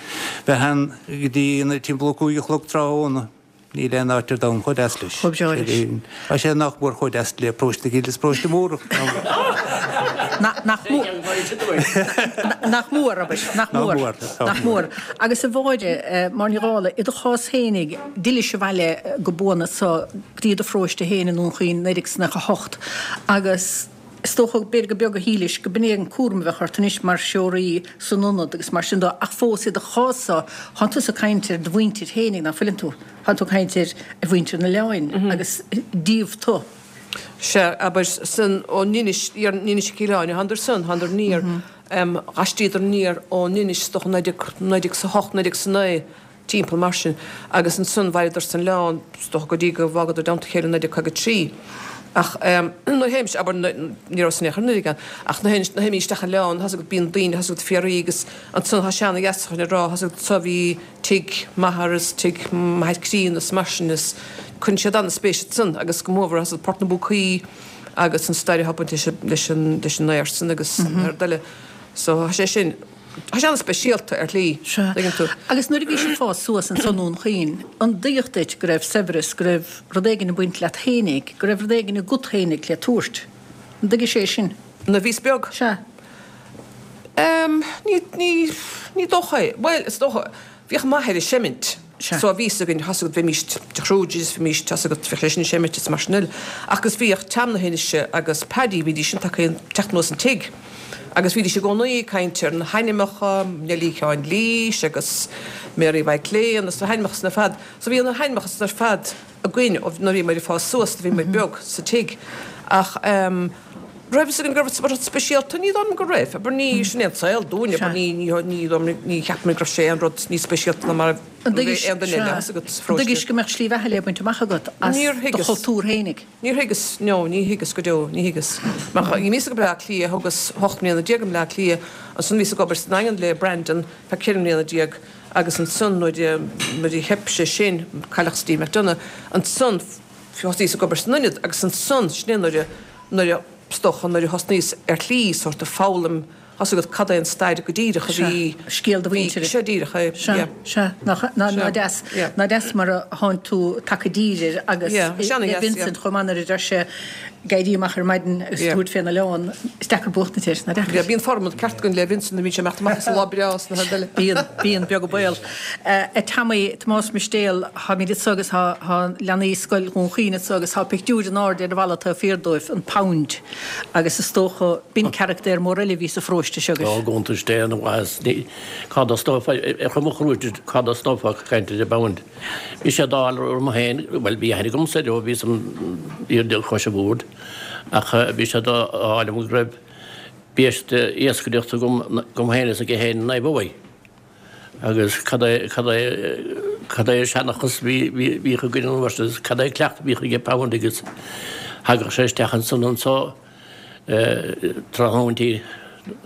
bheith ann go dtí timpeall a 5 a chlog tráthnóna. Níl aon áit ar domhan chomh deas leis. Chomh breá leis. Tá sé nach mór chomh deas le Paróiste na Cille is Paróiste Mór. Nach mór. Nach mór, abair. Nach mór. Nach mór. Agus a Mháire, Máire Ní Dhálaigh, i do chás fhéinig, d'fhillis abhaile go buan anso go dtí do pharóiste féin i nDún Chaoin 1998 agus Is dócha, b'fhéidir gur beag a shílis go b'in é an cúram a bheadh ort anois mar threoraí san ionad agus mar sin de ach fós i do chás-sa, thánn tusa ag caint ar do mhuintir fhéinig, ná fuileann tú? Thánn tú ag caint ar mhuintir an oileáin agus díobh tu. Sea, abair, san, ón Inis, ón Inis Ceithleann, thánadar san, thánadar aniar, d'haistríodar aniar ón Inis, is dócha, 19, 1908, 1909, timpeall mar sin, agus ansan mhaireadar san oileán, is dócha, go dtí go bhfágadar i dteannta a chéile i 1953. Ach nuair a théimis, abair, ní rabhas in aon chor nuair a ach nuair a théimid isteach an oileán, tá's agat, bíonn daoine, tá's agat, fiafraí agus ansan tá seana-gheasachan ag rá, tá's agat, so bhí tigh m'athar is tigh m'athair críonna is mar sin is cuireann siad an-spéis ansan agus go mórmhór tá's agat Port na bPúcaí agus an stair atá bainte leis an leis an aer san agus an rud eile. So tá sé sin, tá sé an-speisialta ar shlí, Sea. tuigeann tú. Agus nuair a bhís ag fás suas ansan i nDún Chaoin, an dtuigeadh duit go raibh saibhreas, go raibh rud éigin ag baint leat fhéinig, go raibh rud éigin agat fhéinig le tabhairt? An dtuigis é sin? Nuair a bhíos beag? Sea. Em, ní, ní, ní dócha é. Bhuel, is dócha, bhíodh m'athair ag seimint. So bhí fhios againn, tá's agat, bheimis de Kruger is bheimis, tá's agat, bheadh sé sin ag seimint is mar sin eile. Ach agus bhíodh Tam na hInise agus Paddy, bhídís sin tagtha teacht anuas an tigh agus bhídís i gcónaí ag caint ar na hainmneacha, Neilí Sheáin Lís agus Mary Mhaidhc Léan agus na hainmneacha san ar fad. So bhí na hainmneacha san ar fad againn ó nuair a bhíomar ag fás suas, nuair a bhíomar beag sa tigh. Ach ehm raibh fhios againn go raibh rud speisialta, ní dóigh liom go raibh. Abair ní, sin é an saol dúinn, abair ní, ní, ní dóigh liom, ní cheapaim go raibh sé aon rud níos speisialta ná mar a An dtuigis, bhí aon duine eile, tá's agat, sa an pharóiste. dtuigis go mbeadh slí bheatha le baint amach agat as Níor do thuigeas. chultúr fhéinig? Níor thuigeas, no, ní thuigeas go deo, ní thuigeas. Mar bhíos go Bleá Cliath, thugas hocht mbliana déag i mBleá Cliath, ansan bhíos ag obair sa nDaingean le Brandon feadh ceithre mbliana déag, Agus ansan nuair a, nuair a theip sé sin, cailleadh Steve McDonagh, ansan thosnaíos ag obair san ionad agus ansan, sin é nuair a, nuair a, is dócha, nuair a thosnaíos ar shlí sórt of foghlaim, tá's agat cad é an stair go díreach a bhí, Scéal do bhí, mhuintire. sea díreach é, Sea, yeah. sea, nach, ná, Sea, ná deas, yeah. ná deas mar a thánn tú tagtha i dtír air agus Yeah, sea, le ana dheas, yeah. Vincent chomh maith nuair a deir sé, ag éirí amach ar maidin agus Yeah. tabhairt fén oileán, is deacair buachtaint air, ná deacair? Yeah, bíonn formad ceart againn le Vincent nuair a bhíonn sé ag imeacht amach is an lá breá is na rud eile. Bíonn, bíonn, beag an baol. A Tommy, Tomás Mistéal, táimid anso agus tá, tá leanaí Scoil Dhún Chaoin anso agus tá pictiúr in airde ar an bhalla taobh thiar dóibh, an Pound, agus is dócha, b'in carachtar mór eile a bhí sa pharóiste seo Ó, agaibh. go hiontais Dé an mhaitheas, ní, cá dtosnófá, ar chuma chrúite, cá dtosnófá ag caint ar an bPound? Bhí sé d'ádh orm féin, bhuel bhí aithne agamsa air ó bhíos im fhear cois an bhoird, ach bhí sé d'ádh liom go raibh biaiste iascaireachta agam, agam féin is aige féin i Naomh Abhaigh. Agus cad é, cad é, cad é an seanchas a bhí, bhí, bhíodh againn an uair sin agus cad é an cleachtadh a bhíodh aige Pound agus thagadh sé isteach ansan anso, tráthnóintí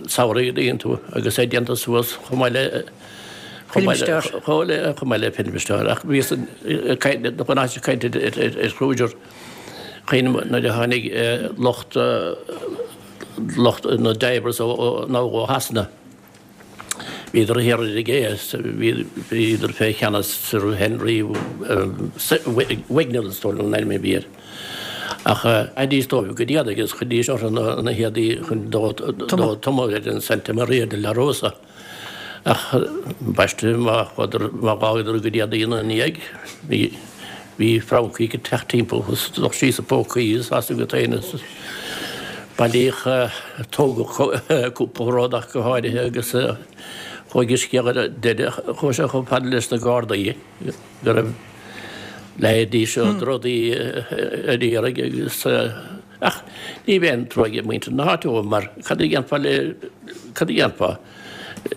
samhraidh a dtuigeann tú agus é déanta suas chomh maith le chomh maith le chomh le chomh maith le filmstar ach bhíos ag caint chun ag caint ar Kruger cuimhním nuair a tháinig lucht lucht na divers ó ó Shasana. Bhíodar thiar ar an gcé is bhíodar fé cheannas Sir Henry Wignall is dóigh liom an ainm a bhí air. Ach chaithidís dóibh go dtí agus chuiridís orthu na héadaí chun dó tumadh ar an Santa Maria de la Rosa. Ach ambaiste má chuadar, má dh'fhágadar a gcuid éadaí ina ndiaidh, bhí, bhí francaigh ag teacht timpeall agus lucht síos a bpócaí is as agat féin is bailíodh, tógadh cúpla rud ach go háirithe agus chuaigh an scéal ar deireadh, chuaigh sé chomh fada leis na Gardaí go raibh leithéidí seo drudaí ar iarraidh agus ach ní bheadh aon trua ag muintir na háite dóibh mar cad a dhéanfá le, cad a dhéanfá?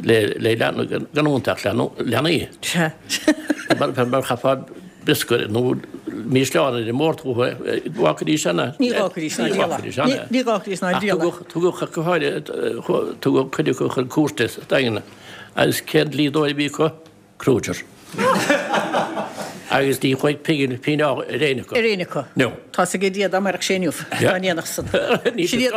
le gan iontu ach leanaí. Mar chaithfeá briosca nó mísleán ar an mbord chucu, bhfágfaidís ann. Ní dh'fhágfaidís ná díol. Ní dh'fhágfaidís ná díol. Tugadh ach go háirithe, tugadh cuid acu chun cúirte sa Daingean agus cén dlíodóir a bhí acu? Kruger. Agus ní chuaigh pingin ar éinne acu. Ar éinne acu. No. Tá's ag Dia dá mairfeadh sé inniu, dá ndéanfadh san. Ní Sin iad,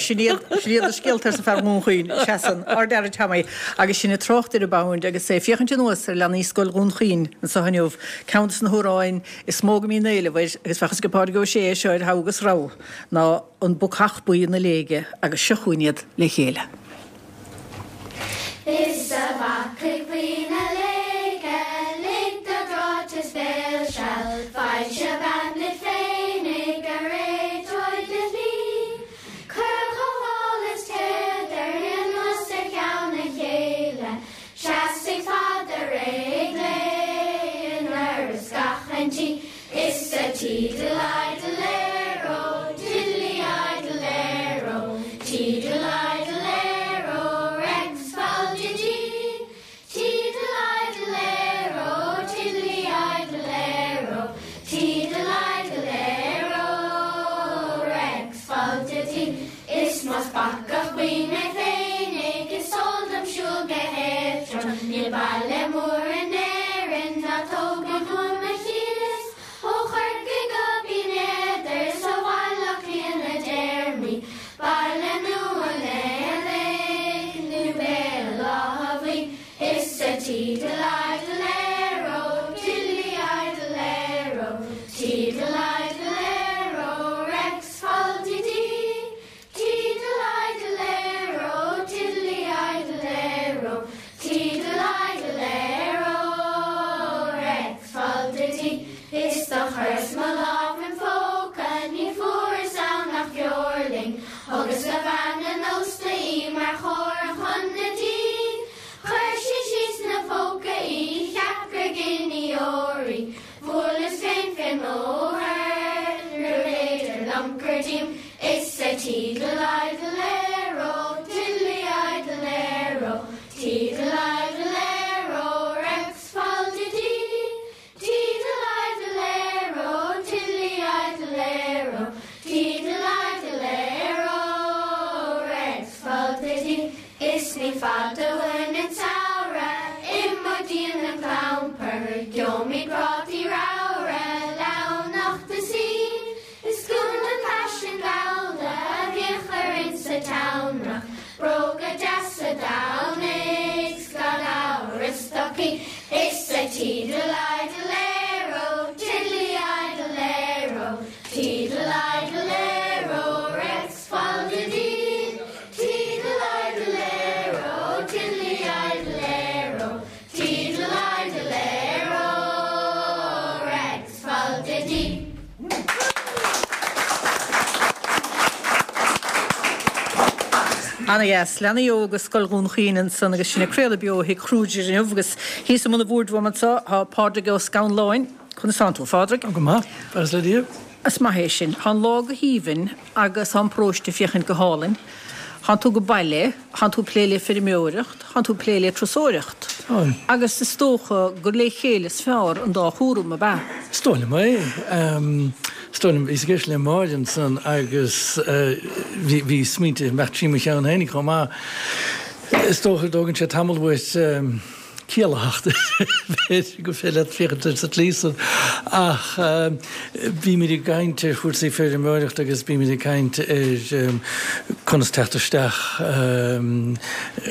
sin iad, sin iad na scéalta arsa fear Dhún Chaoin. Seasann ár bhfear Tommy agus sinn ag trácht ar an bPound agus é ag féachaint anuas ar leanaí Scoil Dhún Chaoin anseo inniu, ceann de na hamhráin is mó go mbíonn éileamh air agus bheadh fhios ag Pádraig Ó Sé é seo ar thogha agus rogha, ná An Bacach Buí na Léige agus seo chugainn iad le chéile. Is a bhacaigh bhuí na léige, lig do dhráiteas béil seal, Foilse bean duit féinig a réiteoidh do shlí. Cuir chomh mall is téad ar anuas ar cheann a chéile, Seasfaidh fada réidh léi in uireasa gach aon tí. Is a tiddle-idle-aero, diddly-idle-aero, tiddle-idle-aero, Rex fal-didee. Tiddle-idle-aero, tiddly-idle-aero, tiddle-idle-aero. Tiddle-idle-air-o, Rex fal-di-dee. Tiddle-idle-air-o, tiddly-idle-air-o, Tiddle-idle-air-o, Rex fal-di-dee. Is do chuireas mo lámh im phóca, ní fuaireas ann ach feoirling. Thugas do bhean an ósta í mar chomhartha chun na dí. Chuir sí síos 'na póca í, cheap gur giní óir í. Bhuaileas féin fén mbóthar, níorbh fhéidir liom cur díom. Is a tiddle-idle-air-o, tiddly-idle-air-o, tiddle-idle-air-o, Rex fal-di-dee. Tiddle-idle-air-o, tiddly-idle-air-o, tiddle-idle-air-o, Rex fal-di-dee. Is ní fada uainn an samhradh, imeoidh dínn an clampar, gheobhaimid prátaí ramhra, leamhnacht is í. Is cuma an faisean gallda a bhíodh orainn sa tseamrach, bróga deasa Domhnaigh 's gan amhras stocaí. Is a tiddle-idle-air-o, tiddly-idle-air-o, tiddle-idle-air-o, Rex fal-di-dee. Tiddle-idle-air-o, tiddly-idle-air-o, tiddle-idle-air-o, Rex fal-di-dee. Ana-dheas. Leanaí óga Scoil Dhún Chaoin ansan agus sinn ag craoladh beo ó Thigh Kruger inniu agus thíos i mbun an bhoird uaim anseo tá Pádraig Ó Scanláin. Conas tánn tú, a Phádraig? Go maith, buíochas le Dia. Is maith é sin. Tá an lá go haoibhinn agus tá an paróiste ag féachaint go hálainn. Tánn tú ag baile, tánn tú ag plé le feirmeoireacht, tánn tú ag plé le turasóireacht. Táim. Agus is dócha gur le chéile is fearr an dá chúram, ab ea? Is dóigh liom é. Is dóigh liom, bhíos ag éisteacht le Máire ansan agus bhí smaointe ag imeacht trí mo cheann féinig chomh maith. Is dócha go dtógann sé tamall uait ciallaitheacht, b'fhéidir gur féidir leat féachaint air sa tslí san. Ach bímid ag caint ar chúrsaí feirmeoireachta agus bímid ag caint ar conas teacht isteach,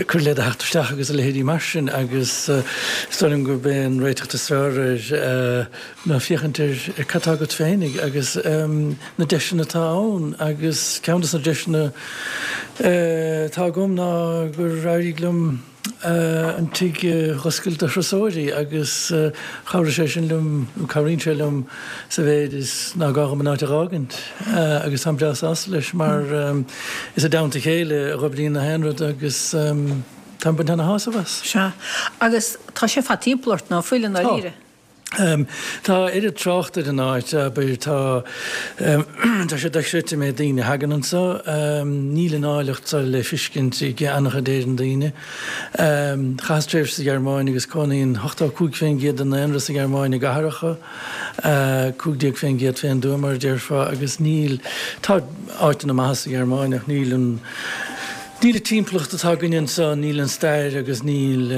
cur le do theacht isteach agus a leithéidí mar sin agus is dóigh liom gurb é an réiteach is fearr air ná féachaint ar cad tá agat féinig agus na deiseanna atá ann agus ceann de na deiseanna atá agam ná gur éirigh liom an tigh a dh'oscailt do thurasóirí agus chabhraigh sé sin liom, nó cabhraíonn sé liom sa mhéid is ná gá dhom an áit a dh'fhágaint agus táim breá sásta leis mar is i dteannta a chéile a dh'oibríonn na haon rud agus táim ag baint ana-shásamh as. Sea. Agus tá sé fad timpeall ort, ná fuil, i ndáiríre? Tá. Tá oiread trácht ar an áit, abair, tá, tá sé dochreidte an méid daoine a thagann anso. Níl an áilleacht seo le fiscint ag an-chuid Éireann daoine. Chaitheas tréimhse sa Ghearmáin agus cónaíonn 85% den daonra sa Ghearmáin i gcathracha, 15% fén dtuath mar a déarfá, agus níl, tá áiteanna maithe sa Ghearmáin ach níl an, níl an timpeallacht atá againne anso, níl an stair agus níl.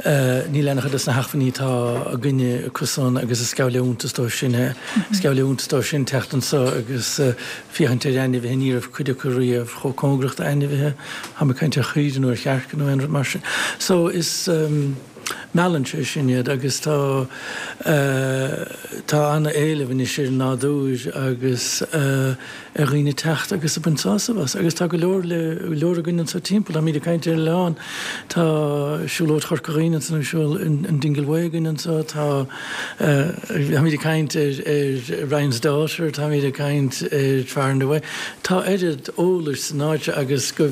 Níl an-chuid de na hacmhainní atá againne acusan agus is geall le iontas dóibh sin é. Is geall le iontas dóibh sin teacht anso agus féachaint ar ainmhithe, ní raibh cuid acu riamh chomh cóngarach d'ainmhithe, táim ag caint ar chaoire nó ar chearca nó aon rud mar sin. So is meallann sé sin iad agus tá tá an-éileamh anois ar an nádúr agus ar dhaoine teacht agus ag baint sásamh as. Agus tá go leor le go leor againn anseo timpeall. Táimid ag caint ar an oileán, tá Siúlóid Chorca Dhuibhne anso, siúl an Dingle Way againn anseo, tá táimid ag caint ar ar Ryan's Daughter, táimid ag caint ar Far and Away. Tá oiread eolais san áit seo agus go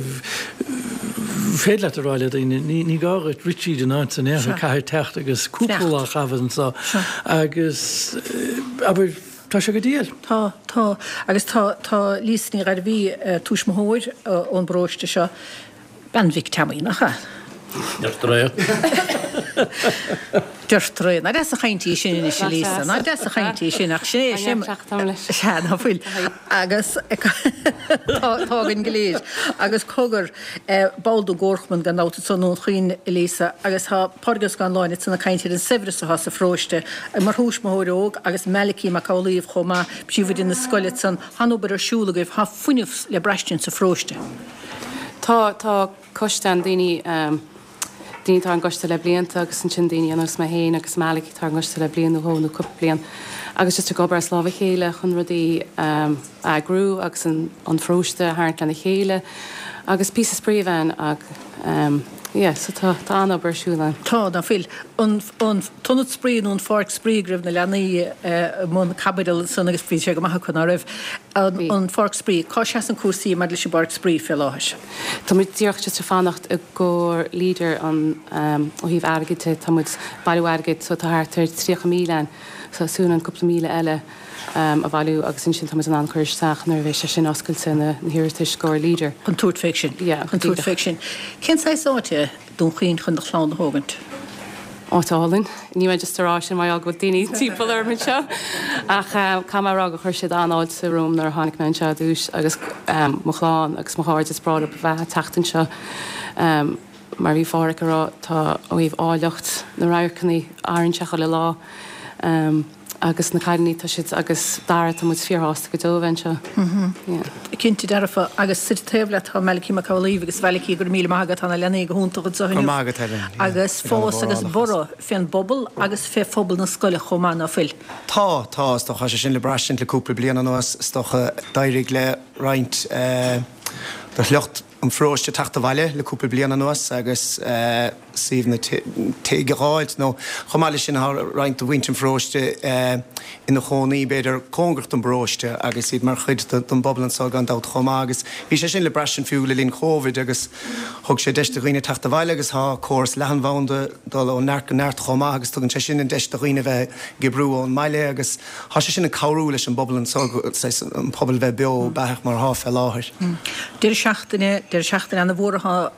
féidir leat a rá le daoine, ní ní gá dhuit rith tríd an áit san aon chor, caithfidh teacht agus cúpla lá a chaitheamh anseo agus abair, Tá sé go diail. Tá, tá. Agus tá, tá Lisa Ní Ghairbhí, tuismitheoir ón bparóiste seo, bean Mhic Teamaí, nach ea? Deirtear é. Deirtear é. Nach deas an chaint í sin anois, a Lisa. Nach deas an chaint í sin, ach sin é, sin. Sea, ná fuil. Agus tá, tá againn go léir. Agus cogar, ball den gComharchumann gan dabht anso i nDún Chaoin, a Lisa, agus tá Pádraig Ó Scanláin ansan ag caint ar an saibhreas atá sa pharóiste, mar thuismitheoir óg agus Malachy Mac Amhlaoibh chomh maith, príomhoide na scoile ansan, tá an obair ar siúl agaibh, tá fuinneamh le braistint sa pharóiste. Tá, tá coiste ann, daoine. daoine atá ar an gcoiste le blianta agus ansin daoine ar nós mé féin agus Malachy atá ar an gcoiste le bliain nó dhó nó cúpla bliain agus just ag obair as lámh a chéile chun rudaí a eagrú agus an pharóiste a tharraingt lena chéile agus píosa spraoi a bheith ann yeah so tá tá an-obair ar siúl ann. Tá, ná fuil. An an t-ionad spraoi nó an pháirc spraoi go raibh na leanaí i mbun caibidil ansan agus bhí sé go maith acu, ná raibh? An an pháirc spraoi, cá seasann cúrsaí maidir leis an bpáirc spraoi fé láthair? Tá muid díreach just ag fanacht i gcomhair Leader an ó thaobh airgid de, tá muid ag bailiú airgid so tá thart ar 30,000 ann so súil againn cúpla míle eile a bhailiú agus ansin tá muid in ann cur isteach nuair a bheidh sé sin oscailte na hiarratais i gcomhair Leader. Chun tabhairt fé sin. Yeah, Chun tabhairt fé sin. Cén saghas áit é Dún Chaoin chun do chlann a thógaint? Áit álainn. Níl mé just ag rá sin mar gheall go bhfuil daoine timpeall orm anseo ach caithfidh mé a rá gur chuir siad an-fháilte romham nuair a tháinig mé anseo ar dtús agus mo chlann agus mo chairde is breá leo a bheith ag teacht anseo. Mar a bhí Phádraic ag rá tá ó thaobh áilleacht na radharcanna athraíonn sé chuile lá. Agus na cailíní, tá siad, agus Dara, tá muid fíorshásta go deo a bheith anseo. Yeah. Cinnte dearfa. Agus suite taobh leat tá Malachy Mac Amhlaoibh agus Mhalachy, go raibh míle maith agat, tá na leanaí go hiontach anseo inniu. Go raibh maith agat, Helen. Yeah. Agus fás agus borradh fén bpobal agus fé phobal na scoile chomh maith, ná fuil? Tá, tá, is dócha, tá sé sin le braistint le cúpla bliain anuas, is dócha. D'éirigh le roinnt de shliocht an pharóiste teacht abhaile le cúpla bliain anuas agus suíomh nó tigh a dh'fháilt nó chomh maith leis sin tá roinnt de mhuintir an pharóiste ina chónaí b'fhéidir cóngarach don bparóiste agus iad mar chuid den bpobal anseo gan dabht chomh maith agus bhí sé sin le braistint fiú le linn Covid agus thug sé deis do dhaoine teacht abhaile agus tá córas leathanbhanda ag dul ó neart go neart chomh maith agus tugann sé sin an deis do dhaoine bheith ag oibriú ón mbaile agus Tá sé sin ag cabhrú leis an bpobal anseo, saghas an pobal bheith beo beathach mar atá fé láthair. Deireadh seachtaine, deireadh seachtaine ana-mhór atá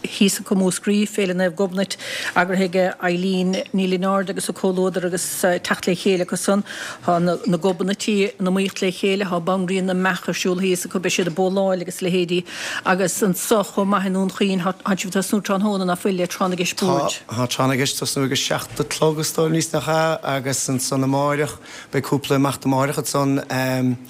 thíos acu i Múscraí, Féile Naomh Gobnait, eagraithe ag Eileen Ní Lionáird agus a comhluadar agus teacht le chéile acu san. Tá na Gobnaití in iomaíocht le chéile, tá Banríon na mBeach ar siúl thíos acu, beidh siad ag bóláil agus a leithéidí. Agus anso chomh maith i nDún Chaoin, tá sibh ag tosnú tráthnóna, ná fuil, le Tráth na gCeist Boird? Tá, tá Tráth na gCeist ag tosnú ag a 7 a chlog is dóigh liom, nach ea? Agus ansan amáireach, beidh cúpla imeacht amáireach ansan.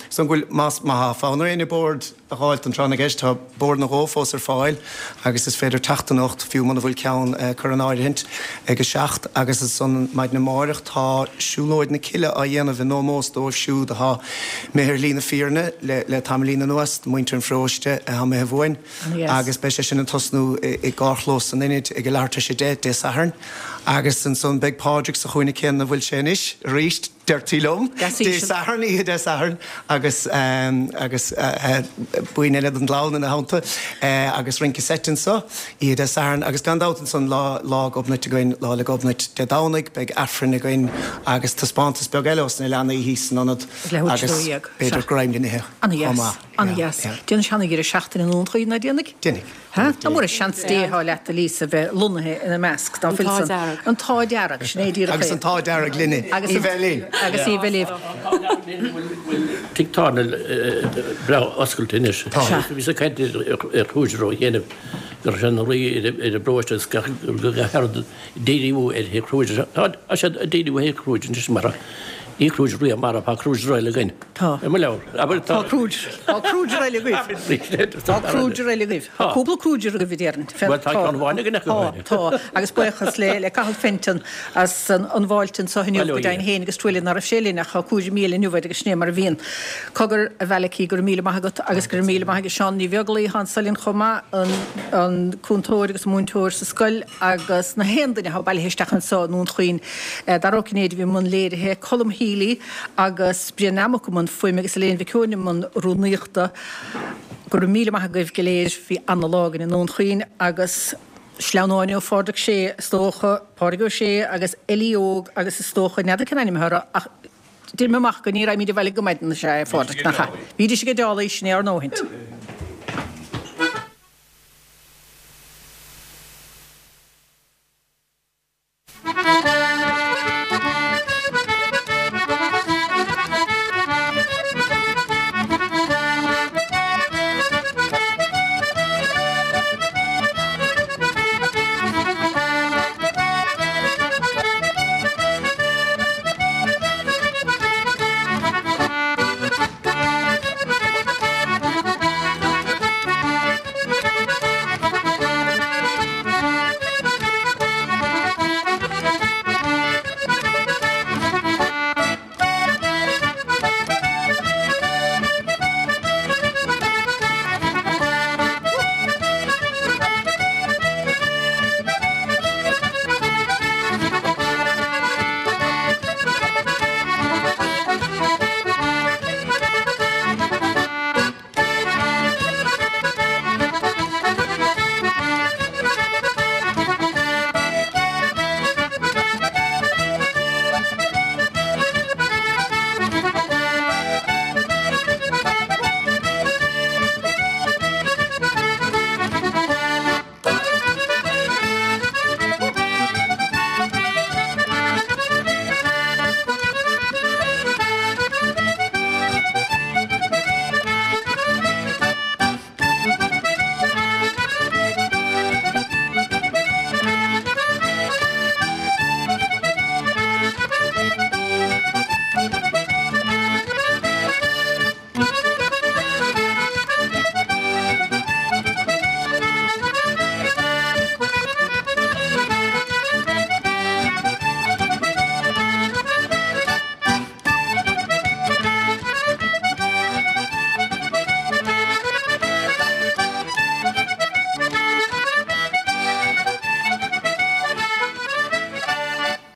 Is dóigh go bhfuil, más, má tá fonn ar éinne bord a dh'fháilt don Tráth na gCeist, tá bord nó dhó fós ar fáil agus is féidir teacht anocht, fiú muna bhfuil ceann curtha in áirithint, ag a 7. Agus ansan maidin amáireach tá Siúlóid na Cille á dhéanamh in ómós dóibh siúd atá imithe ar shlí na fírinne le tamaillín anuas, muintir an pharóiste atá imithe uainn, agus beidh sé sin ag tosnú i gcarrchlós an Ionaid ag a leathuair tar éis a 10 Dé Sathairn. Agus ansan beidh Pádraig sa chúinne céanna ina bhfuil sé anois arís, deirtí liom, Dé Sathairn, oíche Dé Sathairn, agus agus buíon eile den gclann ina theannta, agus rince seit anso, oíche Dé Sathairn. Agus gan dabht ansan Lá Lá Gobnait againn, Lá 'le Gobnait Dé Domhnaigh, beidh Aifreann againn agus taispeántas beag eile ós na leanaí thíos san ionad agus b'fhéidir greim le n-ithe chomh maith. Ana-dheas. Déanfaidh sé ana-dheireadh seachtaine i nDún Chaoin, ná déanfaidh? Déanfaidh. Ha? Nach mór an seans Dé atá leat, a Lisa, bheith lonnaithe ina measc, dá bhfuil san. An t-ádh dearg. Sin é díreach é. Agus an t-ádh dearg linne, í bheith linn. Agus í bheith libh. Tigh tábhairne breá oscailte anois. Tá. Bhíos ag caint ar Kruger ó chianaibh go raibh sé ina luí ar an bparóiste agus go raibh díriú ar Thigh Kruger. Tá siad ag díriú ar Thigh Kruger anois mar ní Kruger riamh marbh, tá Kruger eile againn. Tá. I mo leabhar. Abair tá. Tá Kruger. Tá Kruger eile agaibh. Tá Kruger eile agaibh. Tá cúpla Kruger agaibh a déarfainn. Bhuel tá ceann amháin againn acu. Tá, tá. Agus buíochas le le Cathal Fenton as an an bhfáilte anseo inniu go deimhin féin agus truailliú ná raibh sé linn ach tá cúraimí eile inniu air agus sin é mar a bhíonn. Cogar, a Mhalachy, go raibh míle maith agat agus go raibh míle maith ag Seán Ní Bheaglaoich atá anso linn chomh maith, an an cúntóir agus an múinteoir sa scoil agus na haon duine atá bailithe isteach anseo i nDún Chaoin. Dara Ó Cinnéide a bhí i mbun léirithe, Colm Healy agus Brian Nammock i mbun fuaime agus Elaine Mhic Eoin i mbun rúnaíochta. Go raibh míle maith agaibh go léir, bhí ana-lá againn i nDún Chaoin agus sleamhnáin ó Phádraig Sé is dócha, Pádraig Ó Sé agus Ellie Óg agus is dócha, n'fheadar cén ainm atá orthu ach deir mé amach go ní raghaimid abhaile go maidin is ea é, a Phádraig, nach ea? Bhídís ag an deálaí, sin é ár ndóthaint.